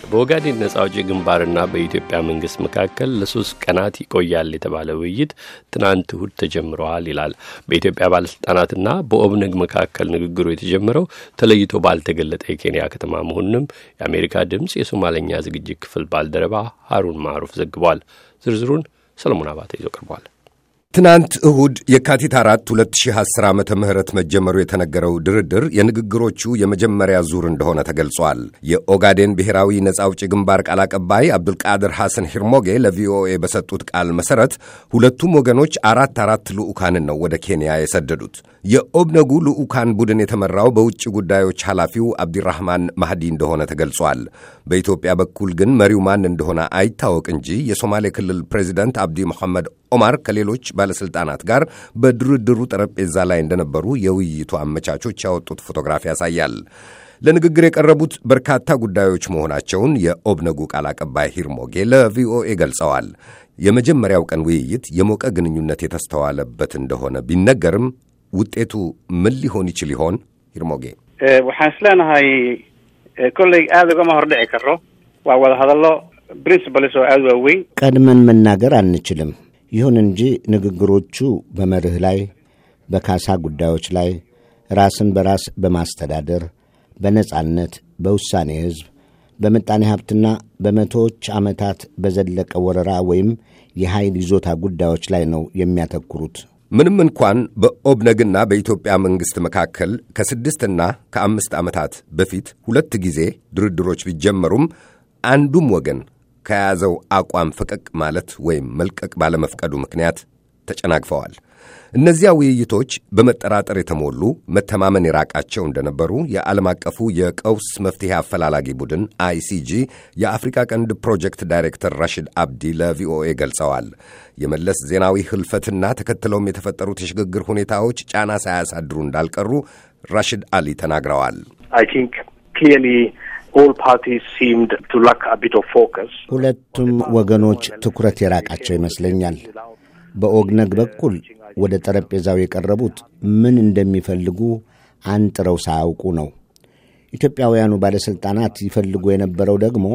በኦጋዴን ነጻ አውጪ ግንባርና በኢትዮጵያ መንግስት መካከል ለ3 ቀናት ይቆያል የተባለ ውይይት ትናንት እሁድ ተጀምሯል ይላል። በኢትዮጵያ ባለስልጣናትና በኦብነግ መካከል ንግግሩ የተጀመረው ተለይቶ ባልተገለጠ የኬንያ ከተማ መሆኑንም የአሜሪካ ድምጽ የሶማሌኛ ዝግጅት ክፍል ባልደረባ ሃሩን ማሩፍ ዘግቧል። ዝርዝሩን ሰለሞን አባተ ይዞ ቀርቧል። ትናንት እሁድ የካቲት 4 2010 ዓመተ ምህረት መጀመሩ የተነገረው ድርድር የንግግሮቹ የመጀመሪያ ዙር እንደሆነ ተገልጿል። የኦጋዴን ብሔራዊ ነጻ አውጪ ግንባር ቃል አቀባይ አብዱልቃድር ሐሰን ሂርሞጌ ለቪኦኤ በሰጡት ቃል መሰረት ሁለቱም ወገኖች አራት ልዑካንን ነው ወደ ኬንያ የሰደዱት። የኦብነጉ ልዑካን ቡድን የተመራው በውጭ ጉዳዮች ኃላፊው አብዲራህማን ማህዲ እንደሆነ ተገልጿል። በኢትዮጵያ በኩል ግን መሪው ማን እንደሆነ አይታወቅ እንጂ የሶማሌ ክልል ፕሬዚዳንት አብዲ መሐመድ ኦማር ከሌሎች ባለስልጣናት ጋር በድርድሩ ጠረጴዛ ላይ እንደነበሩ የውይይቱ አመቻቾች ያወጡት ፎቶግራፍ ያሳያል። ለንግግር የቀረቡት በርካታ ጉዳዮች መሆናቸውን የኦብነጉ ቃል አቀባይ ሂርሞጌ ለቪኦኤ ገልጸዋል። የመጀመሪያው ቀን ውይይት የሞቀ ግንኙነት የተስተዋለበት እንደሆነ ቢነገርም ውጤቱ ምን ሊሆን ይችል ይሆን? ሂርሞጌ waxaan isleenahay kolley aad uga mahordhici karo waa wada hadallo principles oo aad waaweyn ቀድመን መናገር አንችልም። ይሁን እንጂ ንግግሮቹ በመርህ ላይ፣ በካሳ ጉዳዮች ላይ፣ ራስን በራስ በማስተዳደር፣ በነጻነት፣ በውሳኔ ሕዝብ፣ በምጣኔ ሀብትና በመቶዎች ዓመታት በዘለቀ ወረራ ወይም የኃይል ይዞታ ጉዳዮች ላይ ነው የሚያተኩሩት። ምንም እንኳን በኦብነግና በኢትዮጵያ መንግሥት መካከል ከ6 እና ከ5 ዓመታት በፊት 2 ጊዜ ድርድሮች ቢጀመሩም አንዱም ወገን ከያዘው አቋም ፈቀቅ ማለት ወይም መልቀቅ ባለመፍቀዱ ምክንያት ተጨናግፈዋል። እነዚያ ውይይቶች በመጠራጠር የተሞሉ መተማመን የራቃቸው እንደነበሩ የዓለም አቀፉ የቀውስ መፍትሄ አፈላላጊ ቡድን ICG የአፍሪካ ቀንድ ፕሮጀክት ዳይሬክተር ራሽድ አብዲ ለቪኦኤ ገልጸዋል። የመለስ ዜናዊ ህልፈትና ተከትለውም የተፈጠሩት የሽግግር ሁኔታዎች ጫና ሳያሳድሩ እንዳልቀሩ ራሽድ አሊ ተናግረዋል። All parties seemed to lack a bit of focus. ሁለቱም ወገኖች ትኩረት የራቃቸው ይመስለኛል። በኦግነግ በኩል ወደ ጠረጴዛው የቀረቡት ምን እንደሚፈልጉ አንጥረው ሳያውቁ ነው። ኢትዮጵያውያኑ ባለስልጣናት ይፈልጉ የነበረው ደግሞ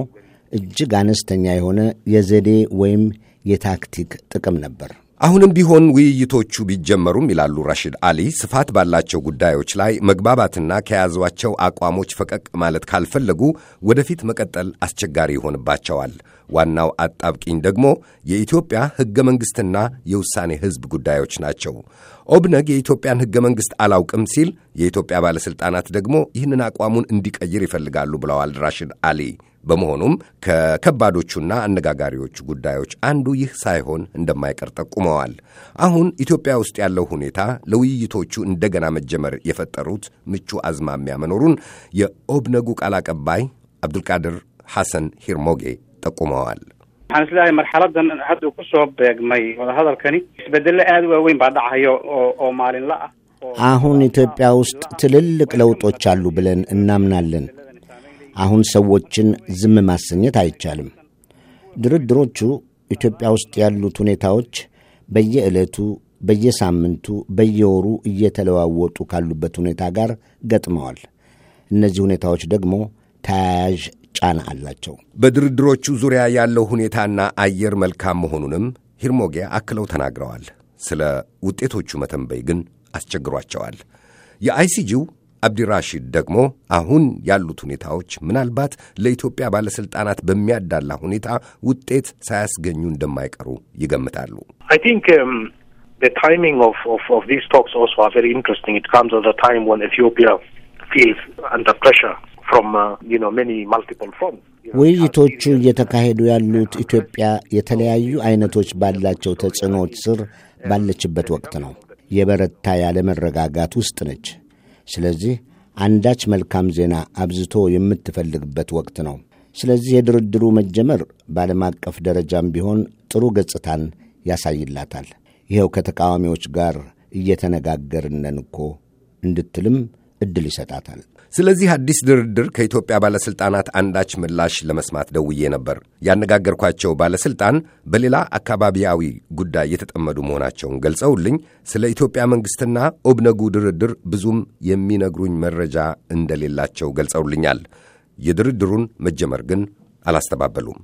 እጅግ አነስተኛ የሆነ የዘዴ ወይም የታክቲክ ጥቅም ነበር። አሁንም ቢሆን ውይይቶቹ ቢጀመሩም ይላሉ ራሽድ አሊ፣ ስፋት ባላቸው ጉዳዮች ላይ መግባባትና ከያዟቸው አቋሞች ፈቀቅ ማለት ካልፈለጉ ወደፊት መቀጠል አስቸጋሪ ይሆንባቸዋል። ዋናው አጣብቂኝ ደግሞ የኢትዮጵያ ሕገ መንግሥትና የውሳኔ ሕዝብ ጉዳዮች ናቸው። ኦብነግ የኢትዮጵያን ሕገ መንግሥት አላውቅም ሲል፣ የኢትዮጵያ ባለሥልጣናት ደግሞ ይህንን አቋሙን እንዲቀይር ይፈልጋሉ ብለዋል ራሽድ አሊ። በመሆኑም ከከባዶቹና አነጋጋሪዎቹ ጉዳዮች አንዱ ይህ ሳይሆን እንደማይቀር ጠቁመዋል። አሁን ኢትዮጵያ ውስጥ ያለው ሁኔታ ለውይይቶቹ እንደገና መጀመር የፈጠሩት ምቹ አዝማሚያ መኖሩን የኦብነጉ ቃል አቀባይ አብዱልቃድር ሐሰን ሂርሞጌ ጠቁመዋል። waxaan islaahay marxaladan hadda ku soo beegmay wada hadalkani isbedel aad u weyn baa dhacayo oo maalinla ah. አሁን ኢትዮጵያ ውስጥ ትልልቅ ለውጦች አሉ ብለን እናምናለን። አሁን ሰዎችን ዝም ማሰኘት አይቻልም። ድርድሮቹ ኢትዮጵያ ውስጥ ያሉት ሁኔታዎች በየዕለቱ፣ በየሳምንቱ፣ በየወሩ እየተለዋወጡ ካሉበት ሁኔታ ጋር ገጥመዋል። እነዚህ ሁኔታዎች ደግሞ ተያያዥ ጫና አላቸው። በድርድሮቹ ዙሪያ ያለው ሁኔታና አየር መልካም መሆኑንም ሂርሞጌ አክለው ተናግረዋል። ስለ ውጤቶቹ መተንበይ ግን አስቸግሯቸዋል። የአይሲጂው አብዲራሺድ ደግሞ አሁን ያሉት ሁኔታዎች ምናልባት ለኢትዮጵያ ባለስልጣናት በሚያዳላ ሁኔታ ውጤት ሳያስገኙ እንደማይቀሩ ይገምታሉ። I think the timing of these talks also are very interesting. It comes at a time when Ethiopia feels under pressure from many multiple fronts. ውይይቶቹ እየተካሄዱ ያሉት ኢትዮጵያ የተለያዩ አይነቶች ባላቸው ተጽዕኖዎች ስር ባለችበት ወቅት ነው። የበረታ ያለ መረጋጋት ውስጥ ነች። ስለዚህ አንዳች መልካም ዜና አብዝቶ የምትፈልግበት ወቅት ነው። ስለዚህ የድርድሩ መጀመር በዓለም አቀፍ ደረጃም ቢሆን ጥሩ ገጽታን ያሳይላታል። ይኸው ከተቃዋሚዎች ጋር እየተነጋገርነን እኮ እንድትልም ዕድል ይሰጣታል። ስለዚህ አዲስ ድርድር ከኢትዮጵያ ባለስልጣናት አንዳች ምላሽ ለመስማት ደውዬ ነበር። ያነጋገርኳቸው ባለስልጣን በሌላ አካባቢያዊ ጉዳይ የተጠመዱ መሆናቸውን ገልጸውልኝ ስለ ኢትዮጵያ መንግስትና ኦብነጉ ድርድር ብዙም የሚነግሩኝ መረጃ እንደሌላቸው ገልጸውልኛል። የድርድሩን መጀመር ግን አላስተባበሉም።